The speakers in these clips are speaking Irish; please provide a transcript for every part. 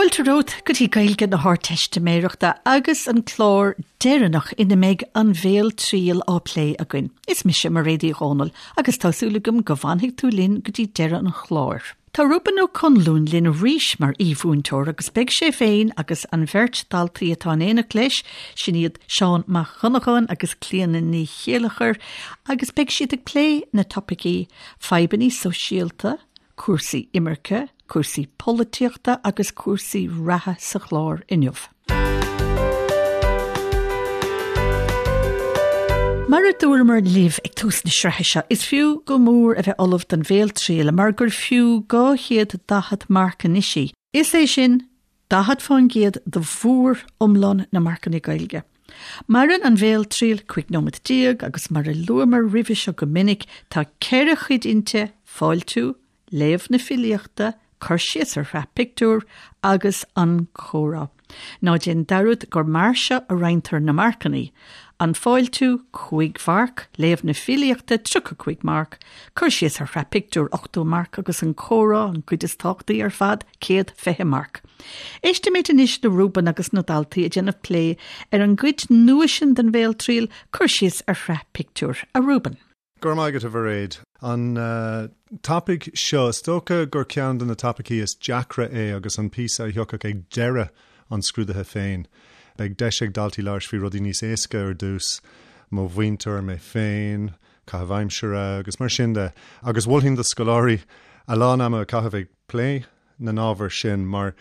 Fáilte romhat go dtí Gaeilge na hArdteistiméireachta agus an clár deireanach ina mbeidh an bhéaltriail á plé againn. Is mise Mairéad Uí Dhomhnaill agus tá súil agam go bhfanfaidh tú linn go dtí deireadh an chláir. Tá Reuben Ó Conluain linn arís mar aoi-mhúinteoir agus beidh sé féin agus an bheirt daltaí atá in éineacht leis, sin iad Seán Mac Dhonnacháin agus Clíona Ní Chéilleachair, agus beidh siad ag plé na topaicí fadhbanna sóisialta, cúrsaí imirce, cúrsaí polaitíochta agus cúrsaí reatha sa chlár inniu. Mar a dúramar libh ag tús na sraithe seo, is fiú go mór a bheith ullamh don bhéaltriail mar gur fiú 240 marc anois í. Is é sin 40% de mhór-iomlán na marcanna Gaeilge. Maireann an bhéaltriail 15 nóiméad agus mar a luamar roimhe seo go minic, tá ceithre chuid inti, fáiltiú, léamh na filíochta, cur síos ar shraith pictiúr agus an comhrá. Ná déan dearúd gur mar seo a roinntear na marcanna, an fáiltiú, 5 mharc, léamh na filíochta, 35 marc, cur síos ar shraith pictiúr, 80 marc agus an comhrá, an chuid is tábhachtaí ar fad, 120 marc. Éistimid anois le Reuben agus na daltaí ag déanamh plé ar an gcuid nua sin den bhéaltriail, cur síos ar shraith pictiúr. A Reuben. Go raibh maith agat, a Mhairéad. An topaic seo, is dócha gur ceann de na topaicí is deacra é agus an píosa a thiocfadh ag deireadh an scrúdaithe féin. Beidh deis ag daltaí labhairt faoi rudaí níos éasca ar dtús, mo mhuintir, mé féin, caitheamh aimsire agus mar sin de. Agus mholfainn do scoláirí a lán ama a chaitheamh ag plé na n-ábhar sin mar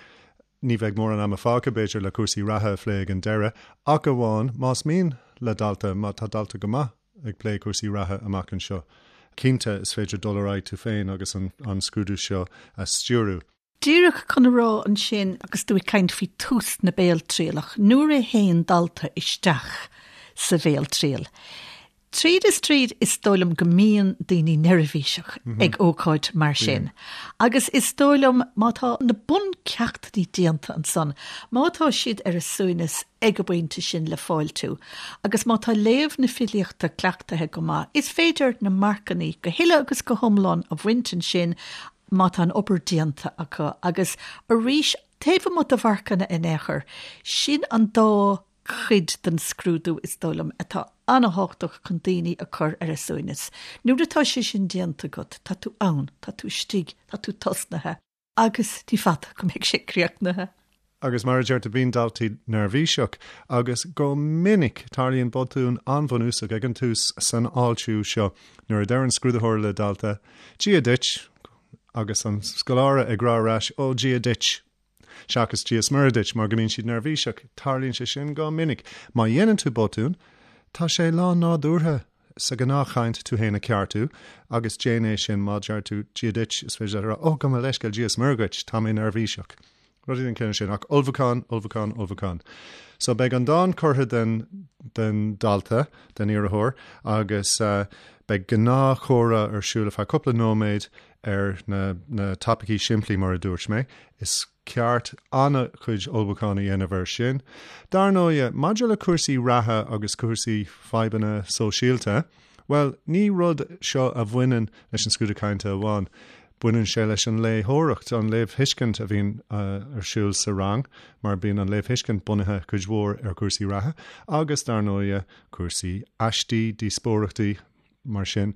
ní bheidh mórán ama fágtha, b'fhéidir, le cúrsaí reatha a phlé ag an deireadh, ach amháin más mian le dalta, má tá dalta go maith. ag plé cúrsaí reatha amach anseo. Cinnte, is féidir dul ar aghaidh tú féin agus an scrúdú seo a stiúrú. Díreach chun a rá ansin, agus tú ag caint faoi tús na béaltrialach, nuair a théann dalta isteach sa bhéaltriail, tríd is tríd is dóigh liom go mbíonn daoine neirbhíseach ag ócáid mar sin. Agus is dóigh liom má tá na buncheachtanna déanta ansan, má tá siad ar a suaimhneas ag an bpointe sin le fáiltiú, agus má tá léamh na filíochta cleachtaithe go maith, is féidir na marcannaí go huile agus go hiomlán a bhaint ansin má tá an obair déanta acu. Agus arís, taobh amuigh de mharcanna in aon chor, sin an dá chuid den scrúdú, is dóigh liom, atá an-thábhachtach chun daoine a chur ar a suaimhneas. Nuair atá sé sin déanta agat, tá tú ann, tá tú istigh, tá tú tosnaithe. Agus ní fada go mbeidh sé críochnaithe. Agus mar a deir tú, bíonn daltaí neirbhíseach, agus go minic tarlaíonn botún an-bhunúsach ag an tús san fháiltiú seo, nuair a deir an scrúdaitheoir le dalta, Dia duit! agus an scoláire ag rá ar ais, Ó, Dia duit! seachas Dia is Muire duit, mar go mbíonn siad neirbhíseach. Tarlaíonn sé sin go minic. Má dhéanann tú botún, tá sé lán-nádúrtha sa ghnáthchaint tú féin a cheartú, agus déan é sin má deir tú Dia duit, is féidir leat a rá, Ó, gabh mo leithscéal, Dia is Muire dhuit, tá mé neirbhíseach. Rudaí den chineál sin. Ach ullmhúchán, ullmhúchán, ullmhúchán. So beidh an dán curtha den, den dalta, den iarrthóir, agus beidh gnáthchomhrá ar siúl ar feadh cúpla nóiméad ar na, na topaicí simplí mar a dúirt mé. Is ceart an-chuid ullmhúcháin a dhéanamh air sin. Dar ndóighe, maidir le cúrsaí reatha agus cúrsaí fadhbanna sóisialta, bhuel, ní rud seo a bhaineann leis an scrúdú cainte amháin. Baineann sé leis an léitheoireacht, an léamhthuiscint a bhíonn ar siúl sa rang, mar bíonn an léamhthuiscint bunaithe cuid mhór ar chúrsaí reatha agus, dar ndóighe, cúrsaí aistí, díospóireachtaí, mar sin.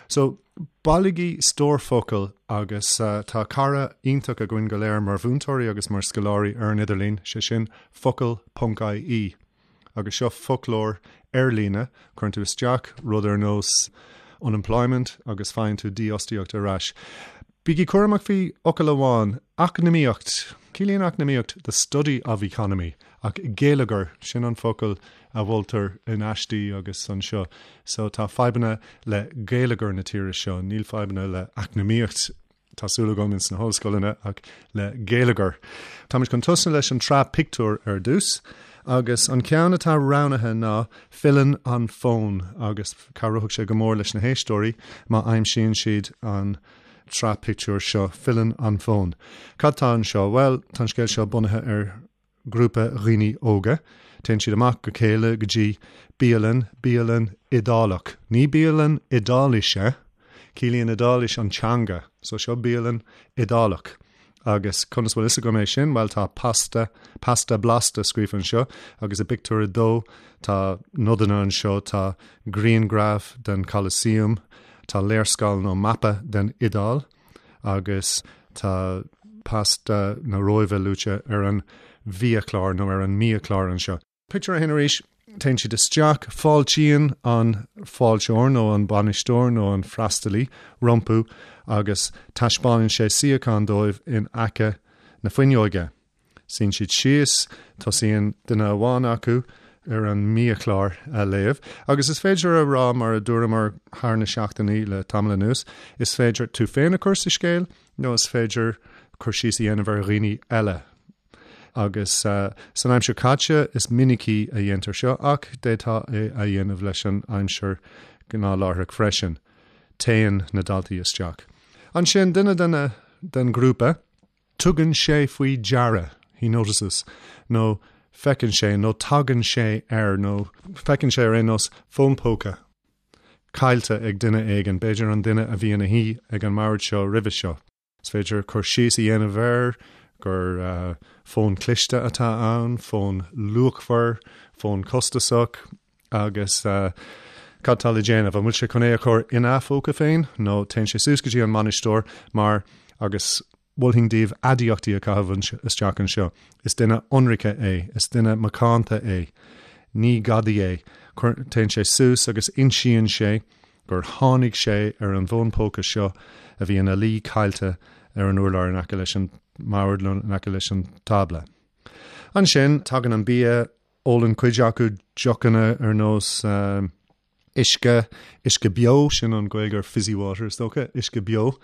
So, bailigí stór focal agus tá cara iontach againn go léir mar mhúinteoirí agus mar scoláirí ar an idirlíon, sé sin focal ponc ie. Agus seo foclóir ar líne, cuireann tú isteach rud ar nós unemployment agus faigheann tú dífhostaíocht ar ais. Bígí cúramach faoi fhocal amháin, eacnamaíocht. Ciallaíonn eacnamaíocht the study of economy, ach geilleagar, sin an focal a mholtar in aistí agus anseo. So tá fadhbanna le geilleagar na tíre seo, níl fadhbanna le eacnamaíocht, tá súil agam, ins na hollscoileanna, ach le geilleagar. Táimid chun tosnú leis an tsraith pictiúr ar dtús, agus an ceann atá roghnaithe ná Filleann an Fón, agus cabhróidh sé go mór leis na héisteoirí má aimsíonn siad an tsraith pictiúr seo, Filleann an Fón. Cad tá anseo? Bhuel, tá an scéal seo bunaithe ar grúpa dhaoine óga. Téann siad amach go chéile go dtí bialann, bialann Iodálach. Ní bialann Iodáilise, ciallaíonn Iodáilis an teanga, so seo bialann Iodálach. Agus conas bhfuil fhios agam é sin? Bhuel tá pasta, pasta blasta scríofa anseo agus i bpictiúr a dó tá nodanna anseo, tá grianghraf den Colosseum, tá léarscáil nó mapa den Iodáil agus tá pasta na Róimhe luaite ar an bhiachlár nó ar an mbiachlár anseo. Pictiúr a haon arís, téann siad isteach, fáiltíonn an fáilteoir nó an bainisteoir nó an freastalaí rompu agus taispeánann sé suíochán dóibh in aice na fuinneoige. Suíonn siad síos, tosaíonn duine amháin acu ar an mbiachlár a léamh agus is féidir a rá mar a dúramar thar na seachtainí le tamall anuas, is féidir tú féin a chur sa scéal nó is féidir cur síos a dhéanamh ar dhaoine eile. Agus san aimsir caite is minicí a dhéantar seo ach d'fhéadfá é a dhéanamh leis an aimsir ghnáthláithreach freisin. Téann na daltaí isteach. Ansin, duine den den ghrúpa, tugann sé faoi deara, he notices, nó feiceann sé nó tagann sé ar nó feiceann sé ar aon nós fón póca caillte ag duine éigin, b'fhéidir an duine a bhí ina shuí ag an mbord seo roimhe seo. Is féidir cur síos a dhéanamh air gur fón cliste atá ann, fón luachmhar, fón costasach agus cad tá le déanamh? An bhfuil sé chun é a chur ina phóca féin nó téann sé suas go dtí an mbainisteoir mar agus mholfainn daoibh aidiachtaí a chaitheamh isteach anseo. Is duine ionraice é, is duine macánta é, ní gadaí é. Téann sé suas agus insíonn sé gur tháinig sé ar an bhfón póca seo a bhí ina luí caillte ar an urlár in aice leis an mbord nó in aice leis an tábla. Ansin, tagann an bia, ólann cuid acu deochanna ar nós uisce, uisce beo, sin an Ghaeilge ar fizzy water is dócha, uisce beo,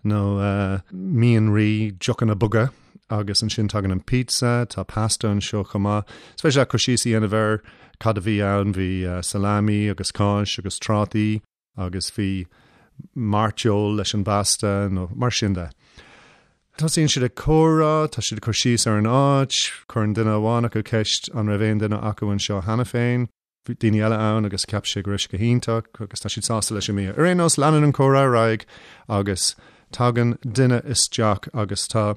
nó mianraí, deochanna boga. Agus ansin tagann an pizza, tá pasta anseo chomh maith. Is féidir leat cur síos a dhéanamh ar cad a bhí ann, bhí salami agus cáis agus trátaí agus bhí mairteoil leis an bpasta nó mar sin de. Tosaíonn siad ag comhrá, tá siad ag cur síos ar an áit, cuireann duine amháin acu ceist an raibh aon duine acu anseo cheana féin. Bhí daoine eile ann agus cheap sé go raibh sé go hiontach agus tá siad sásta leis an mbia. Ar aon nós, leanann an comhrá ar aghaidh agus tagann duine isteach agus tá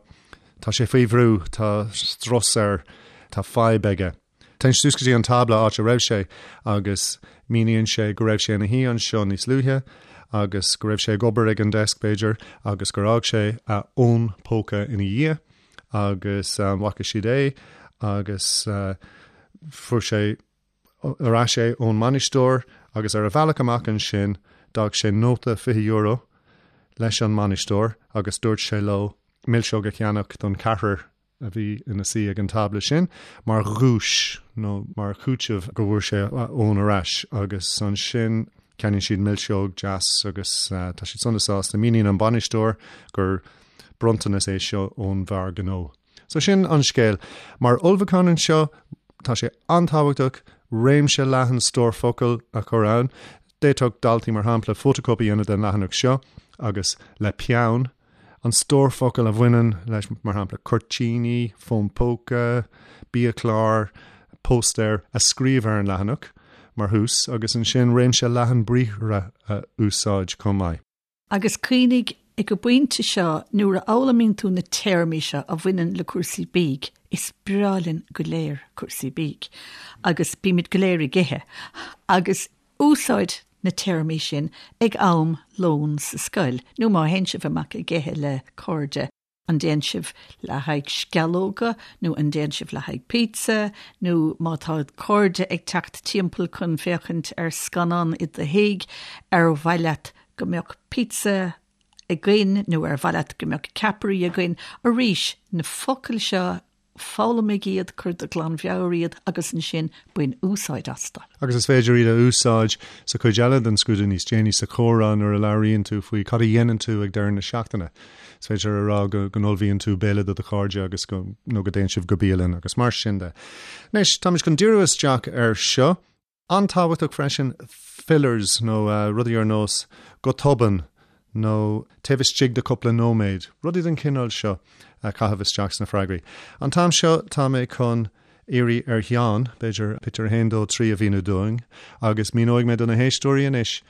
tá sé faoi bhrú, tá strus air, tá fadhb aige. Téann sé suas go dtí an tábla áit a raibh sé agus míníonn sé go raibh sé ina shuí anseo níos luaithe agus go raibh sé ag obair ag an desk b'fhéidir agus gur fhág sé a fhón póca ina dhiaidh agus bhfaca siad é agus fuair sé ar ais é ón mbainisteoir agus ar a bhealach amach ansin d'fhág sé nóta €20 leis an mbainisteoir agus dúirt sé leo milseog a cheannach don cheathrar a bhí ina suí ag an tábla sin mar dhuais nó mar chúiteamh go bhfuair sé a fhón ar ais agus ansin ceannaíonn siad milseog deas agus tá siad sona sásta. Míníonn an bainisteoir gur bronntanas é seo ón bhfear gnó. So sin an scéal. Mar ullmhúchán anseo, tá sé an-tábhachtach réimse leathan stór focal a chur ann. D'fhéadfadh daltaí, mar shampla, fótachóip a dhéanamh den leathanach seo agus le peann, an stór focal a bhaineann leis, mar shampla, cuirtíní, fón póca, biachlár, póstaer, a scríobh ar an leathanach mar thús agus ansin réimse leathan briathra a úsáid chomh maith. Agus cuimhnigh, ag an bpointe seo, nuair a fhoghlaimíonn tú na téarmaí seo a bhaineann le cúrsaí bídh, is breá linn go léir cúrsaí bídh, agus bímid go léir ag ithe, agus úsáid na téarmaí sin ag am lóin sa scoil, nó má théann sibh amach ag ithe le cairde. An dtéann sibh le haghaidh sceallóga nó an dtéann sibh le haghaidh pizza nó má tá cairde ag teacht timpeall chun féachaint ar scannán i do thigh, ar mhaith leat go mbeadh pizza againn nó ar mhaith leat go mbeadh ceapairí againn? Arís, na focail seo, Foghlaimigh iad, cuir de ghlanmheabhair iad agus ansin bain úsáid astu. Agus is féidir iad a úsáid sa chuid eile den scrúdú níos déanaí sa chomhrá nuair a labhraíonn tú faoi cad a dhéanann tú ag deireadh na seachtaine. Is féidir a rá go n-ullmhaíonn tú béile do do chairde agus go nó go dtéann sibh go bialann agus mar sin de. Anois, táimid chun díriú isteach air seo. An-tábhachtach freisin, fillers nó rudaí ar nós go tobann nó taobh istigh de cúpla nóiméad, rudaí den chineál seo a chaitheamh isteach sna freagraí. An t-am seo tá mé chun iarraidh ar Sheán, b'fhéidir, pictiúr 1, 2, 3 a mhíniú dúinn agus míneoidh mé do na héisteoirí anois.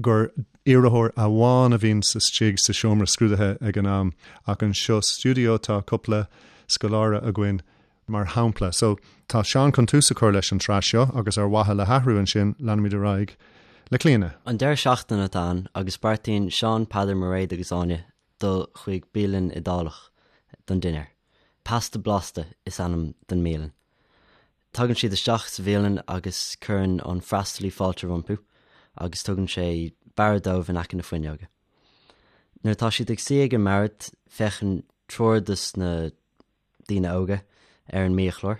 gur iarrthóir amháin a bhíonn istigh sa seomra scrúdaithe ag an am ach anseo sa stiúideo tá cúpla scoláire againn mar shampla. So, tá Seán chun tús a chur leis an tsraith seo agus ar mhaithe le hathrú ansin leanfaimid ar aghaidh le Clíona. An deireadh seachtaine atá ann agus beartaíonn Seán, Peadar, Mairéad agus Áine dul chuig bialann Iodálach don dinnéar. Pasta Blasta is ainm don mbialann. Tagann siad isteach sa bhialann agus cuireann an freastalaí fáilte rompu agus tugann sé bord dóibh in aice na fuinneoige. Nuair atá siad ag suí ag an mbord, féachann triúr dos na daoine óga ar an mbiachlár.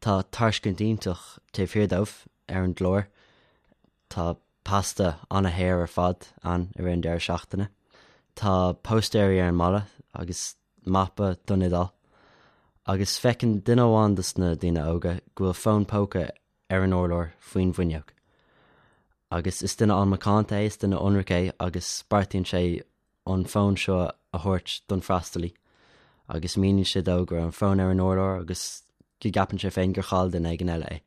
Tá tairiscint iontach taobh thiar dóibh ar an gclár. Tá pasta an-shaor ar fad ann i rith an deireadh seachtaine. Tá póstaeirí ar an mballa agus mapa don Iodáil. Agus feiceann duine amháin dos na daoine óga go bhfuil fón póca ar an urlár faoin bhfuinneog. Agus is duine an-mhacánta é, is duine ionraic é agus beartaíonn sé an fón seo a thabhairt don freastalaí agus míníonn sé dó go raibh an fón ar an urlár agus go gceapann sé féin gur chaill duine éigin eile é.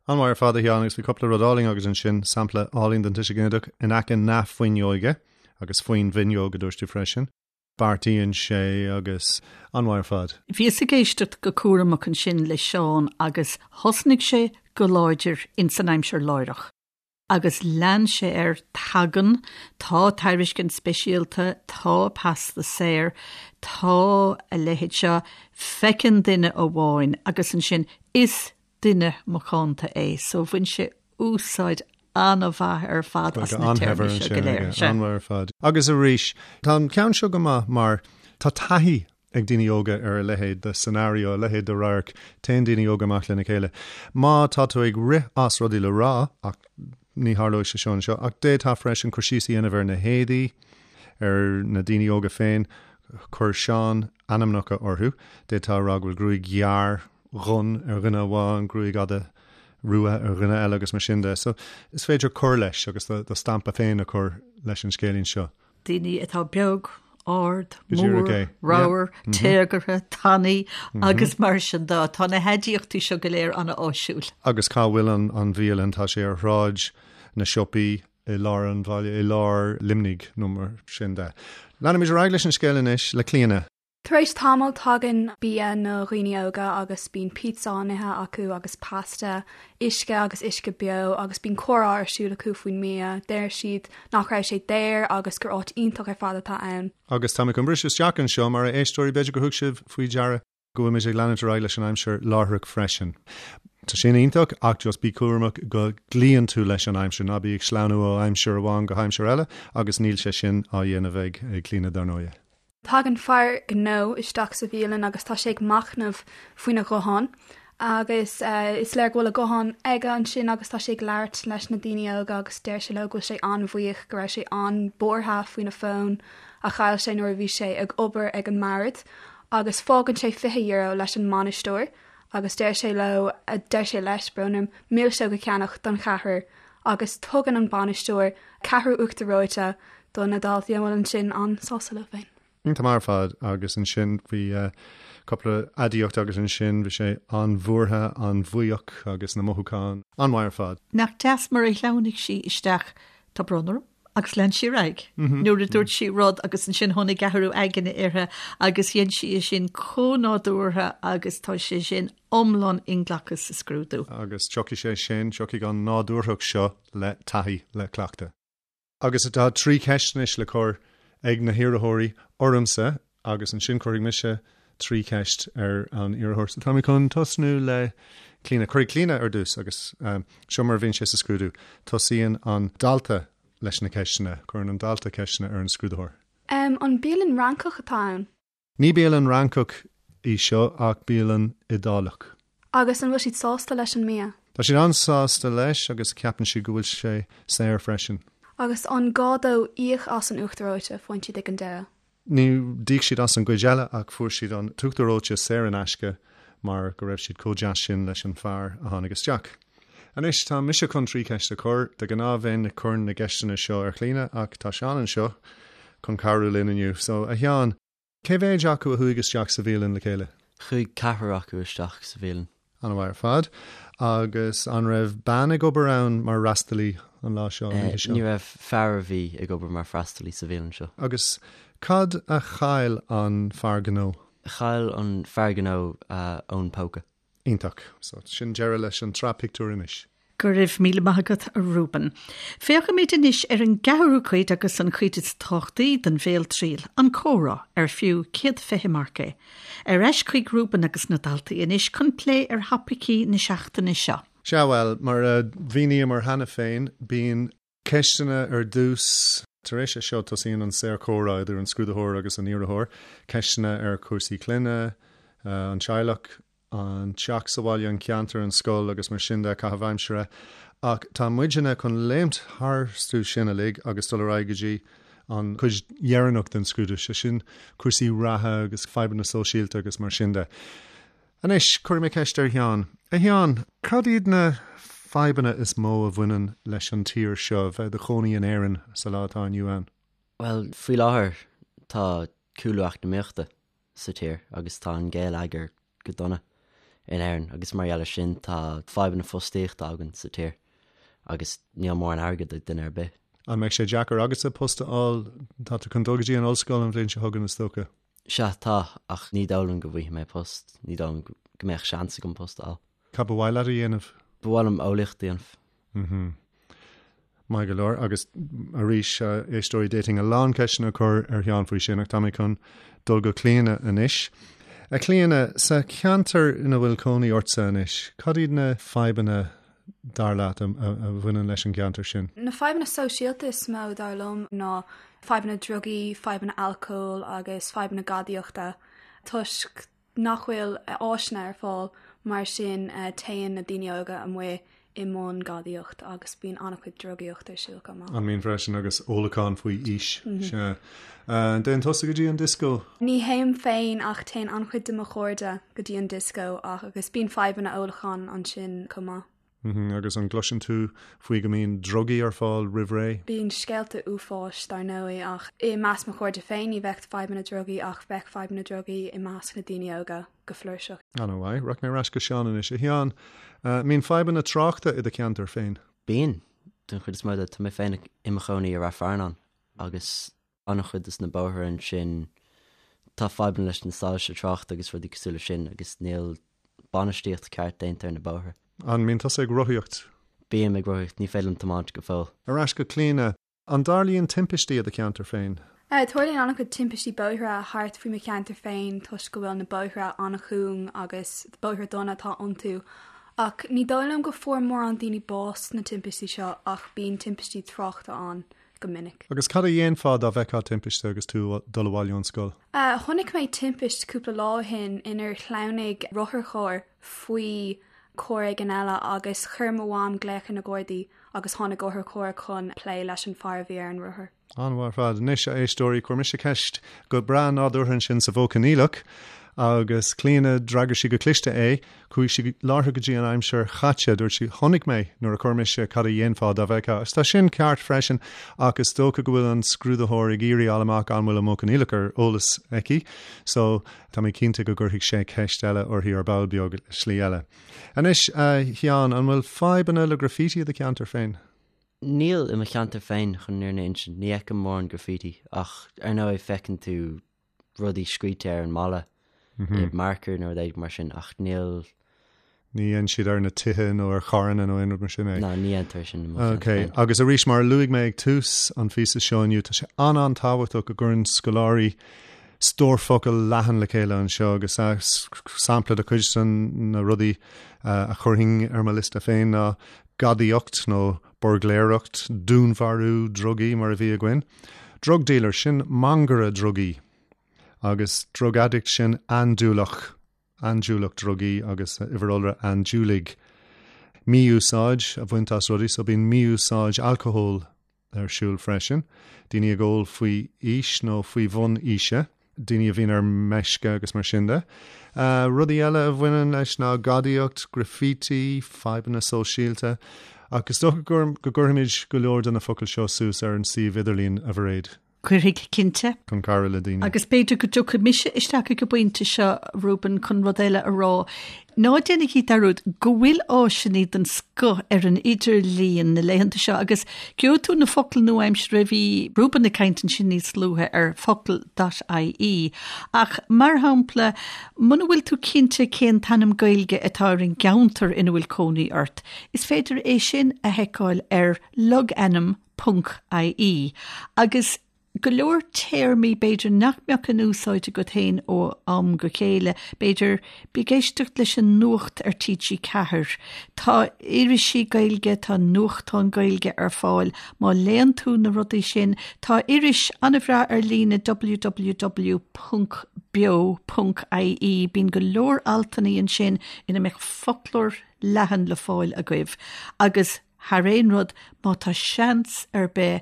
An-mhaith ar fad a Sheáin agus bhí cúpla rud álainn agat ansin, sampla álainn den tuiseal ginideach in aice na fuinneoige agus faoin bhfuinneog a dúirt tú freisin. Beartaíonn sé agus an-mhaith ar fad. Bhíos ag éisteacht go cúramach ansin le Seán agus thosnaigh sé go láidir ins an aimsir láithreach. Agus lean sé air, tagann, tá tairiscint speisialta, tá pasta saor, tá a leithéid seo, feiceann duine amháin agus ansin is duine macánta é. So bhain sé úsáid an-mhaith ar fad as na téarmaí seo go léir. An-mhaith ar fad. Agus arís, tá an ceann seo go maith mar tá taithí ag daoine óga ar a leithéid de scenario, a leithéid de radharc, téann daoine óga amach lena chéile. Má tá tú ag rith as rudaí le rá, ach ní tharlóidh sé seo anseo, ach d'fhéadfá freisin cur síos a dhéanamh ar na héadaí, ar na daoine óga féin, chuir Seán ainmneacha orthu, d'fhéadfá a rá go bhfuil gruaig ghearr dhonn ar dhuine amháin, gruaig fhada rua ar dhuine eile agus mar sin de. So is féidir cur leis agus do stampa féin a chur leis an scéilín seo. Daoine atá beag, ard, mór, ramhar, téagartha, tanaí agus mar sin de. Tá na haidiachtaí seo go léir an-áisiúil. Agus cá bhfuil an bhialann? Tá sé ar Shráid na Siopaí i lár an bhaile, i lár Luimnigh nó mar sin de. Leanfaimid ar aghaidh leis an scéal anois le Clíona. Tar éis tamaill tagann bia na dhaoine óga agus bíonn pizza á n-ithe acu agus pasta, uisce agus uisce beo agus bíonn comhrá ar siúl acu faoin mbia. Deir siad nach raibh sé daor agus gur áit iontach ar fad atá ann. Agus tá mé chun briseadh isteach anseo mar a éisteoirí, b'fhéidir gur thug sibh faoi deara go bhfuilimid ag leanúint ar aghaidh leis an aimsir láithreach freisin. Tá sin iontach ach just bí cúramach go gcloíonn tú leis an aimsir, ná bí ag sleamhnú ó aimsir amháin go haimsir eile agus níl sé sin á dhéanamh ag Clíona dar ndóighe. Tagann fear gnó isteach sa bhialann agus tá sé ag machnamh faoina ghuthán agus is léir go bhfuil a ghuthán aige ansin agus tá sé ag labhairt leis na daoine óga agus deir sé leo go bhfuil sé an-bhuíoch go raibh sé an-bhuartha faoina fón a chaill sé nuair a bhí sé ag obair ag an mbord agus fágann sé €20 leis an mbainisteoir agus deir sé leo, deir sé leis, brón orm, milseog a cheannach don cheathrar agus tugann an bainisteoir ceathrú uachtar reoite do na daltaí a bhfuil ansin an-sásta leo féin. Iontach maith ar fad agus ansin bhí cúpla aidiacht agus ansin bhí sé an-bhuartha, an-bhuíoch agus na mothúcháin an-mhaith ar fad. Nach deas mar a shleamhnaigh sí isteach, tá brón orm, agus lean sí ar aghaidh nuair a dúirt sí rud agus ansin tháinig athrú aigne uirthi agus dhein sí é sin chomh nádúrtha agus tá sé sin iomlán inghlactha sa scrúdú. Agus tiocfaidh sé sin, tiocfaidh an nádúrthacht seo le taithí, le cleachtadh. Agus tá 3 cheist anois le cur ag na hiarrthóirí ormsa agus ansin cuirfidh mise 3 cheist ar an iarrthóir. So tá mé chun tosnú le Clíona. Cuirfidh Clíona ar dtús agus seo mar a bhíonn sé sa scrúdú. Tosaíonn an dalta leis na ceisteanna. Cuireann an dalta ceisteanna ar an scrúdaitheoir. An bialann Fhrancach atá ann? Ní bialann Fhrancach í seo ach bialann Iodálach. Agus an bhfuil siad sásta leis an mbia? Tá siad an-sásta leis agus ceapann siad go bhfuil sé saor freisin. Agus an gá dóibh íoc as an uachtar reoite a faigheann siad ag an deireadh? Ní d'íoc siad as an gcuid eile ach fuair siad an t-uachtar reoite saor in aisce mar go raibh siad chomh deas sin leis an fear a tháinig isteach. Anois tá mise chun 3 cheist a chur. De ghnáth bheinn ag cur na gceisteanna seo ar Chlíona ach tá Seán anseo chun cabhrú linn inniu. So, a Sheáin, cé mhéid acu a chuaigh isteach sa bhialann le chéile? Chuaigh ceathrar acu isteach sa bhialann. An-mhaith ar fad. Agus an raibh bean ag obair ann mar fhreastalaí an lá seo, an oíche seo? Ní raibh, fear a bhí ag obair mar freastalaí sa bhialann seo. Agus cad a chaill an fear gnó? Chaill an fear gnó a fhón póca. Iontach. So, sin deireadh leis an tsraith pictiúr anois. Go raibh míle maith agat, a Reuben. Féachfaimid anois ar an gceathrú cuid agus an chuid is tábhachtaí den bhéaltriail, an comhrá, ar fiú 120 marc é. Ar ais chuig Reuben agus na daltaí anois chun plé ar thopaicí na seachtaine seo. Sea, bhuel, mar a mhíníomar cheana féin, bíonn ceisteanna ar dtús. Tar éis é seo, tosaíonn an saorchomhrá idir an scrúdaitheoir agus an iarrthóir, ceisteanna ar chúrsaí clainne, an teaghlach, an teach sa bhaile, an ceantar, an scoil agus mar sin de, caitheamh aimsire. Ach tá muidne chun léimt tharstu sin uilig agus dul ar aghaidh go dtí an chuid dheireanach den scrúdú, sé sin cúrsaí reatha agus fadhbanna sóisialta agus mar sin de. Anois, cuirfidh mé ceist ar Sheán. A Sheáin, cad iad na fadhbanna is mó a bhaineann leis an tír seo, bheith i do chónaí in Éirinn sa lá atá inniu ann? Bhuel, faoi láthair tá cúlú eacnamaíochta sa tír agus tá an geilleagar go dona in Éirinn agus mar gheall air sin tá fadhbanna fostaíochta againn sa tír agus níl mórán airgid ag duine ar bith. An mbeidh sé deacair agatsa post a fháil? Tá tú chun dul go dtí an ollscoil an bhliain seo chugainn is dócha? Sea, tá, ach ní dóigh liom go bhfaighidh mé post, ní dóigh liom go mbeadh seans agam post a fháil. Cad ba mhaith leat a dhéanamh? Ba mhaith liom eolaíocht a dhéanamh. Mhm. Maith go leor. Agus arís, a éisteoirí, d'fhéadfainn a lán ceisteanna a chur ar Sheán faoi sin, ach tá mé chun dul go Clíona anois. A Chlíona, sa cheantar ina bhfuil cónaí ortsa anois, cad iad na fadhbanna, dar leat, a bhaineann leis an gceantar sin? Na fadhbanna sóisialta is mó, dar liom, ná fadhbanna drugaí, fadhbanna alcóil agus fadhbanna gadaíochta, toisc nach bhfuil áiseanna ar fáil, mar sin téann na daoine óga amuigh i mbun gadaíocht agus bíonn an-chuid drugaíocht ar siúl chomh maith. An mbíonn freisin agus ólachán faoi aois? Sea. An dtéann tusa go dtí an dioscó? Ní théim féin ach téann an-chuid de mo chairde go dtí an dioscó ach agus bíonn fadhbanna ólacháin ansin chomh maith. Agus an gcloiseann tú faoi go mbíonn drugaí ar fáil roimh ré? Bíonn scéalta uafáis, dar ndóigh, ach i measc mo chairde féin ní bheadh fadhbanna drugaí ach bheadh fadhbanna drugaí i measc na daoine óga go flúirseach. An-mhaith. Rachaidh mé ar ais go Seán anois. A Sheáin, mbíonn fadhbanna tráchta i do cheantar féin? Bíonn, den chuid is mó de. Tá mé féin i mo chónaí i Rath Fearnáin agus an-chuid des na bóithre ansin, tá fadhbanna leis na soilse tráchta agus rudaí cosúil leis sin agus níl bainistíocht ceart déanta ar na bóithre. An mbíonn tusa ag rothaíocht? Bím ag rothaíocht, ní féidir liom tiomáint go fóill. Ar ais go Clíona, an dtarlaíonn timpistí i do cheantar féin? Tarlaíonn an-chuid timpistí bóithre thart faoi mo cheantar féin toisc go bhfuil na bóithre an-chúng agus bóithre dona atá iontu. Ach ní dóigh liom go fuair mórán daoine bás sna timpistí seo ach bíonn timpistí tráchta ann. go minic. Agus cad a dhéanfá dá bhfeicfeá timpiste agus tú ag dul abhaile ón scoil? Chonaic mé timpist cúpla lá ó shin inar shleamhnaigh rotharcharr faoi charr éigin eile agus chuir mo mham glaoch ar na Gardaí agus tháinig otharcharr chun plé leis an fear a bhí ar an rothar. An-mhaith ar fad. Anois, a éisteoirí, chuir mise ceist go breá nádúrtha ansin sa mhodh coinníollach agus Clíona, d'fhreagair sí go cliste é. Chuaigh sí láithreach go dtí an aimsir chaite. Dúirt sí, Chonaic mé nuair a chuir mise cad a dhéanfá dá bhfeicfeá. Agus tá sin ceart freisin ach is dócha go bhfuil an scrúdaitheoir ag iarraidh fháil amach an bhfuil an modh coinníollach ar eolas aici. So, tá mé cinnte go gcuirfidh sé ceist eile uirthi ar ball beag, slí eile. Anois, a Sheáin, an bhfuil fadhbanna le graffiti i do cheantar féin? Níl i mo cheantar féin, chun an fhírinne a insint. Ní fheicim mórán graffiti ach ar ndóigh feiceann tú rudaí scríte ar an mballa i marker nó rud éigin mar sin ach níl. Ní dhéanann siad ar na tithe nó ar charranna nó aon rud mar sin é? Ná, ní dhéantar é sin i mo cheantar féin. Ok, agus arís mar a luaigh mé ag tús an phíosa seo inniu, tá sé an-an-tábhachtach go gcuireann scoláirí stór focal leathan le chéile anseo agus sampla de chuid de na rudaí a chuirfinn ar mo liosta féin ná gadaíocht nó buirgléireacht, dúnmharú, drugaí mar a bhí againn. Drug dealer, sin mangaire drugaí. Agus drug addict, sin andúileach, andúileach drugaí agus uimhir iolra andúiligh. Mí-úsáid a bhaint as rudaí, so bíonn mí-úsáid alcóil ar siúl freisin. Daoine ag ól faoi aois nó faoi bhun aoise. daoine a bhíonn ar meisce agus mar sin de. Rudaí eile a bhaineann leis ná gadaíocht, graffiti, fadhbanna sóisialta, ach is dócha go gcuirfimid go leor de na focail seo suas ar an suíomh idirlín, a Mhairéad. Cuirfidh, cinnte. Chun cabhrú le daoine. Agus b'fhéidir go dtiocfaidh mise isteach ag an bpointe seo, Reuben, chun rud eile a rá. Ná déanaigí dearúd go bhfuil áiseanna den scoth ar an idirlíon na laethanta seo agus gheobhaidh tú na focail nua-aimseartha, bhí Reuben ag caint ansin níos luaithe ar focal dot ie. Ach, mar shampla, muna bhfuil tú cinnte cén t-ainm Gaeilge atá ar an gceantar ina bhfuil cónaí ort, is féidir é sin a sheiceáil ar logainm ponc ie agus go leor téarmaí b'fhéidir nach mbeadh in úsáid agat féin ó am go chéile, b'fhéidir, bí ag éisteacht leis an nuacht ar TG4. Tá irisí Gaeilge, tá nuachtáin Gaeilge ar fáil. Má léann tú na rudaí sin, tá iris an-bhreá ar líne www ponc beo ponc ie, bíonn go leor altanna ansin ina mbeadh foclóir leathan le fáil agaibh agus Thar aon rud, má tá seans ar bith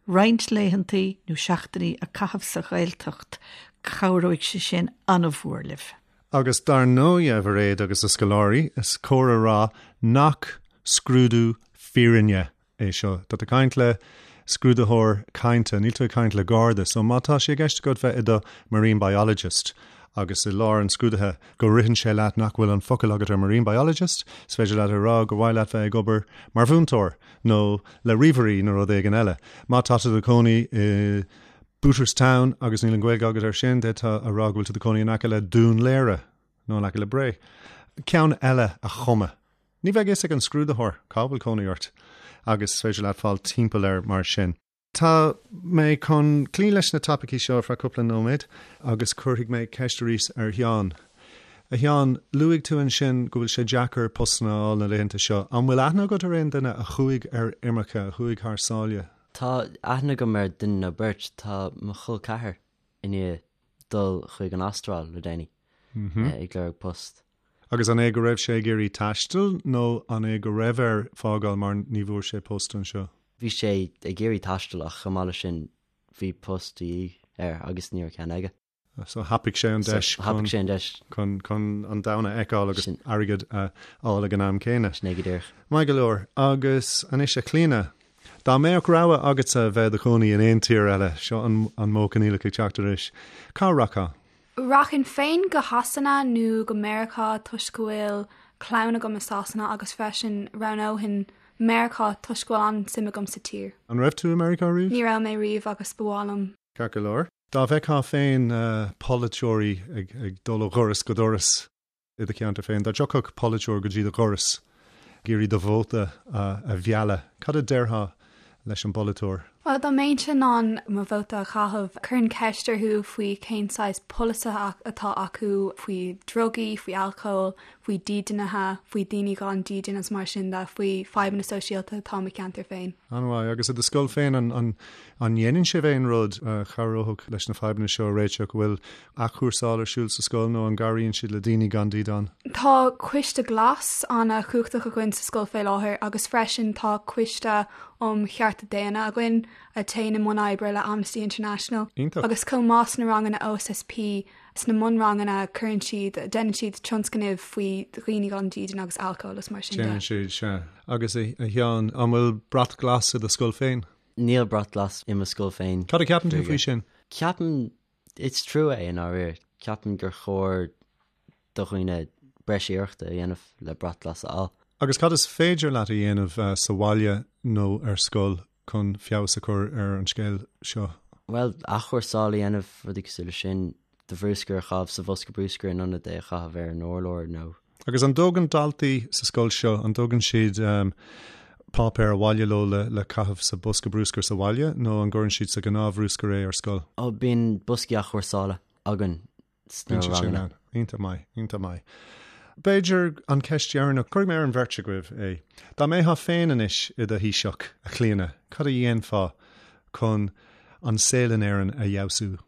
roinnt laethantaí nó seachtainí a chaitheamh sa Ghaeltacht, cabhróidh sé sin an-mhór libh. Agus dar ndóigh, a Mhairéad agus a scoláirí, is cóir a rá nach scrúdú fírinne é seo. Tá tú ag caint le scrúdaitheoir cainte, níl tú ag caint le garda. So má tá sé i gceist agat bheith i do marine biologist agus i lár an scrúdaithe go ritheann sé leat nach bhfuil an focal agat ar marine biologist, is féidir leat a rá gur mhaith leat bheith ag obair mar mhúinteoir nó le ríomhairí nó rud éigin eile. Má tá tú i do chónaí i Booterstown agus níl an Ghaeilge agat air sin, d'fhéadfá a rá go bhfuil tú i do chónaí in aice le Dún Laoghaire nó in aice le Bré. Ceann eile a chumadh. Ní bheidh fhios ag an scrúdaitheoir cá bhfuil cónaí ort agus is féidir leat fáil timpeall air mar sin. Tá mé chun cloí leis na topaicí seo ar feadh cúpla nóiméad agus cuirfidh mé ceist arís ar Sheán. A Sheáin, luaigh tú ansin go bhfuil sé deacair postanna a fháil na laethanta seo. An bhfuil aithne agat ar aon duine a chuaigh ar imirce, a chuaigh thar sáile? Tá aithne agam ar duine nó beirt. Tá mo chol ceathar i ndiaidh dul chuig an Astráil le déanaí ag lorg post. Agus an é go raibh sé ag iarraidh taisteal nó an é go raibh air fágáil mar ní bhfuair sé post anseo? Bhí sé ag iarraidh taisteal ach chomh maith leis sin bhí post de dhíth air agus ní raibh ceann aige. So thapaigh sé an deis So thapaigh sé an deis. chun chun an domhan a fheiceáil agus airgead a fháil ag an am céanna. Sin é go díreach. Maith go leor. Agus anois a Chlíona, dá mbeadh rogha agatsa bheith i do chónaí in aon tír eile, seo an an modh coinníollach ag teacht arís, cá rachfá? Rachainn féin go Shasana nó go Meiriceá toisc go bhfuil clann agam i Sasana agus freisin roghnóinn Meiriceá toisc go bhfuil an-suim agam sa tír. An raibh tú i Meiriceá riamh? Ní raibh mé riamh agus ba mhaith liom. Ceart go leor. Dá bhfeictheá féin polaiteoirí ag dul ó dhoras go doras i do cheantar féin, dá dtiocfadh polaiteoir go dtí do dhoras ag iarraidh do vóta a mhealladh, cad a déarfá leis an bpolaiteoir? Bhuel, dá mbeinnse in ann mo vóta a chaitheamh, chuirfinn ceist orthu faoi cén saghas polasaithe atá acu faoi drugaí, faoi alcól, faoi dídeanaithe, faoi daoine gan dídean agus mar sin de, faoi fadhbanna sóisialta atá i mo cheantar féin. An-mhaith. Agus i do scoil féin, an ndéanann sibh aon rud a chabhródh leis na fadhbanna seo a réiteach? An bhfuil athchúrsáil ar siúl sa scoil nó an gcabhraíonn siad le daoine gan dídean? Tá Coiste Glas an-chumhachtach againn sa scoil fé láthair agus freisin tá Coiste um Chearta Daonna againn a théann i mbun oibre le Amnesty International. Iontach. Agus chomh maith sna ranganna OSSP, Sna mbunranganna cuireann siad, déanann siad tionscnaimh faoi dhaoine gan dídean agus alcól agus mar sin de. Déanann siad, sea. Agus a Sheáin, an bhfuil brat glas i do scoil féin? Níl brat glas i mo scoil féin. Cad a cheapann tú faoi sin? Ceapaim, is trua é i ndáiríre. Ceapaim gur chóir do dhaoine breis iarrachta a dhéanamh le brat glas a fháil. Agus cad is féidir leat a dhéanamh sa bhaile nó ar scoil chun feabhas a chur ar an scéal seo? Bhuel, athchúrsáil a dhéanamh, rudaí cosúil leis sin, do bhruscar a chaitheamh sa bhosca bruscair in ionad é a chaitheamh ar an urlár nó. Agus an dtógann daltaí sa scoil seo, an dtógann siad páipéar abhaile leo le caitheamh sa bosca bruscair sa bhaile nó an gcuireann siad sa ghnáthbhruscar é ar scoil? Ó, bíonn boscaí athchúrsála againn sna ranganna. Iontach maith, iontach maith. B'fhéidir an ceist dheireanach, cuirfidh mé ar an bheirt agaibh é. Dá mbeifeá féin anois i do Thaoiseach, a Chlíona, cad a dhéanfá chun an saol in Éirinn a fheabhsú?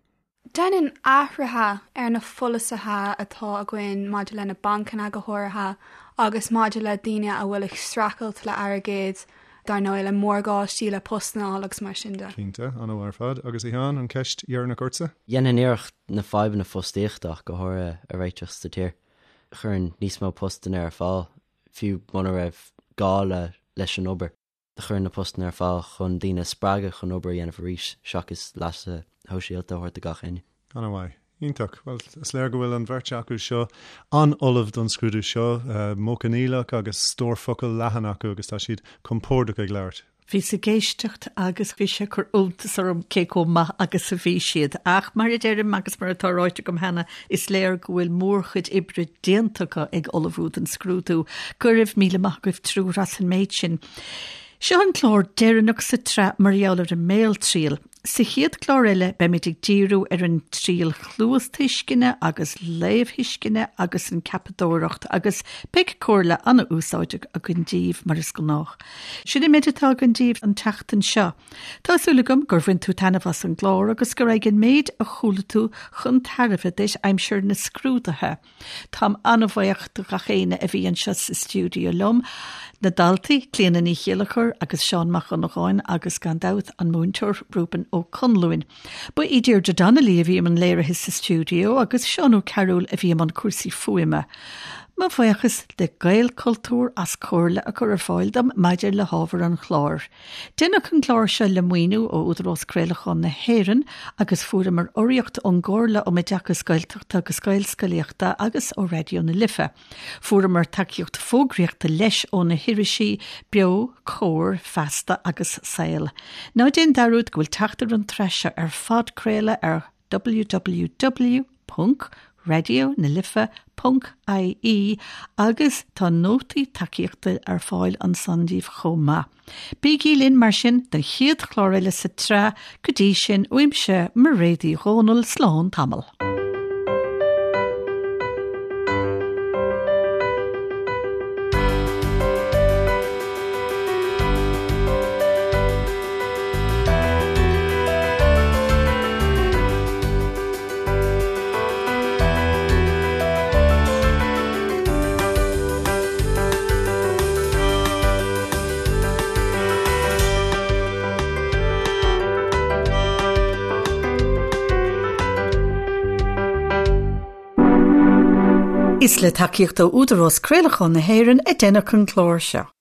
Dhéanfainn athruithe ar na pholasaithe atá againn maidir le na bancanna go háirithe agus maidir le daoine a bhfuil ag streachailt le airgead, dar ndóigh le morgáistí, le postanna a fháil agus mar sin de. Cinnte, an-mhaith ar fad. Agus a Sheáin, an cheist dheireanach ortsa? Dhéanfainn iarracht na fadhbanna fostaíochta ach go háirithe a réiteach sa tír. Chuirfinn níos mó postanna ar fáil, fiú muna raibh gá le leis an obair. Chuir na postanna ar fáil chun daoine a spreagadh chun obair a dhéanamh arís seachas leasa shóisialta a thabhairt do gach éinne. An-mhaith. Iontach. Bhuel, is léir go bhfuil an bheirt acu seo an-ullamh don scrúdú seo, modh coinníollach agus stór focal leathan acu agus tá siad compordach ag labhairt. Bhíos ag éisteacht agus bhí sé ag cur iontas orm cé chomh maith agus a bhí siad. Ach mar a deirim agus mar atá ráite agam cheana, is léir go bhfuil mórchuid oibre déanta acu ag ullmhú don scrúdú. Go raibh míle maith agaibh triúr as an méid sin. Seo an clár deireanach sa tsraith mar gheall ar an mbéaltriail. Sa chéad chlár eile beimid ag díriú ar an triail chluastuisceana agus léamhthuisceana agus an ceapadóireacht agus beidh comhairle an-úsáideach againn daoibh mar is gnách. Sin an méid atá againn daoibh an tseachtain seo. Tá súil agam gur bhain tú taitneamh as an gclár agus go rachaidh an méid a chuala tú chun tairbhe duit aimsir na scrúduithe. Táim an-bhuíoch do gach éinne a bhí anseo sa stiúideo liom, na daltaí, Clíona Ní Chéilleachair agus Seán Mac Dhonnagáin agus gan dabht an múinteoir Reuben Ó Conluain. Ba í Deirdre Donnelly a bhí i mbun léirithe sa stiúideo agus Seán Ó Cearúil a bhí i mbun cúrsaí fuaime. Mo bhuíochas le Gaelchultúr as comhairle a chur ar fáil dom maidir le hábhar an chláir. Deineadh an clár seo le maoiniú ó Údarás Craolacháin na hÉireann agus fuaireamar urraíocht ón gComhairle um Oideachas Gaeltachta agus Gaelscolaíochta agus ó Raidió na Life. Fuaireamar tacaíocht fógraíochta leis ó na hirisí Beo, Comhar, Feasta agus Saol. Ná déan dearúd go bhfuil teacht ar an tsraith seo ar phodchraoladh ar www.radionalife.ie agus tá nótaí tacaíochta ar fáil ansan daoibh chomh maith. Bígí linn mar sin don chéad chlár eile sa tsraith, go dtí sin uaimse Mairéad Uí Dhomhnaill, slán tamall. Is le tacaíocht ó Údarás Craolacháin na hÉireann a deineadh an clár seo.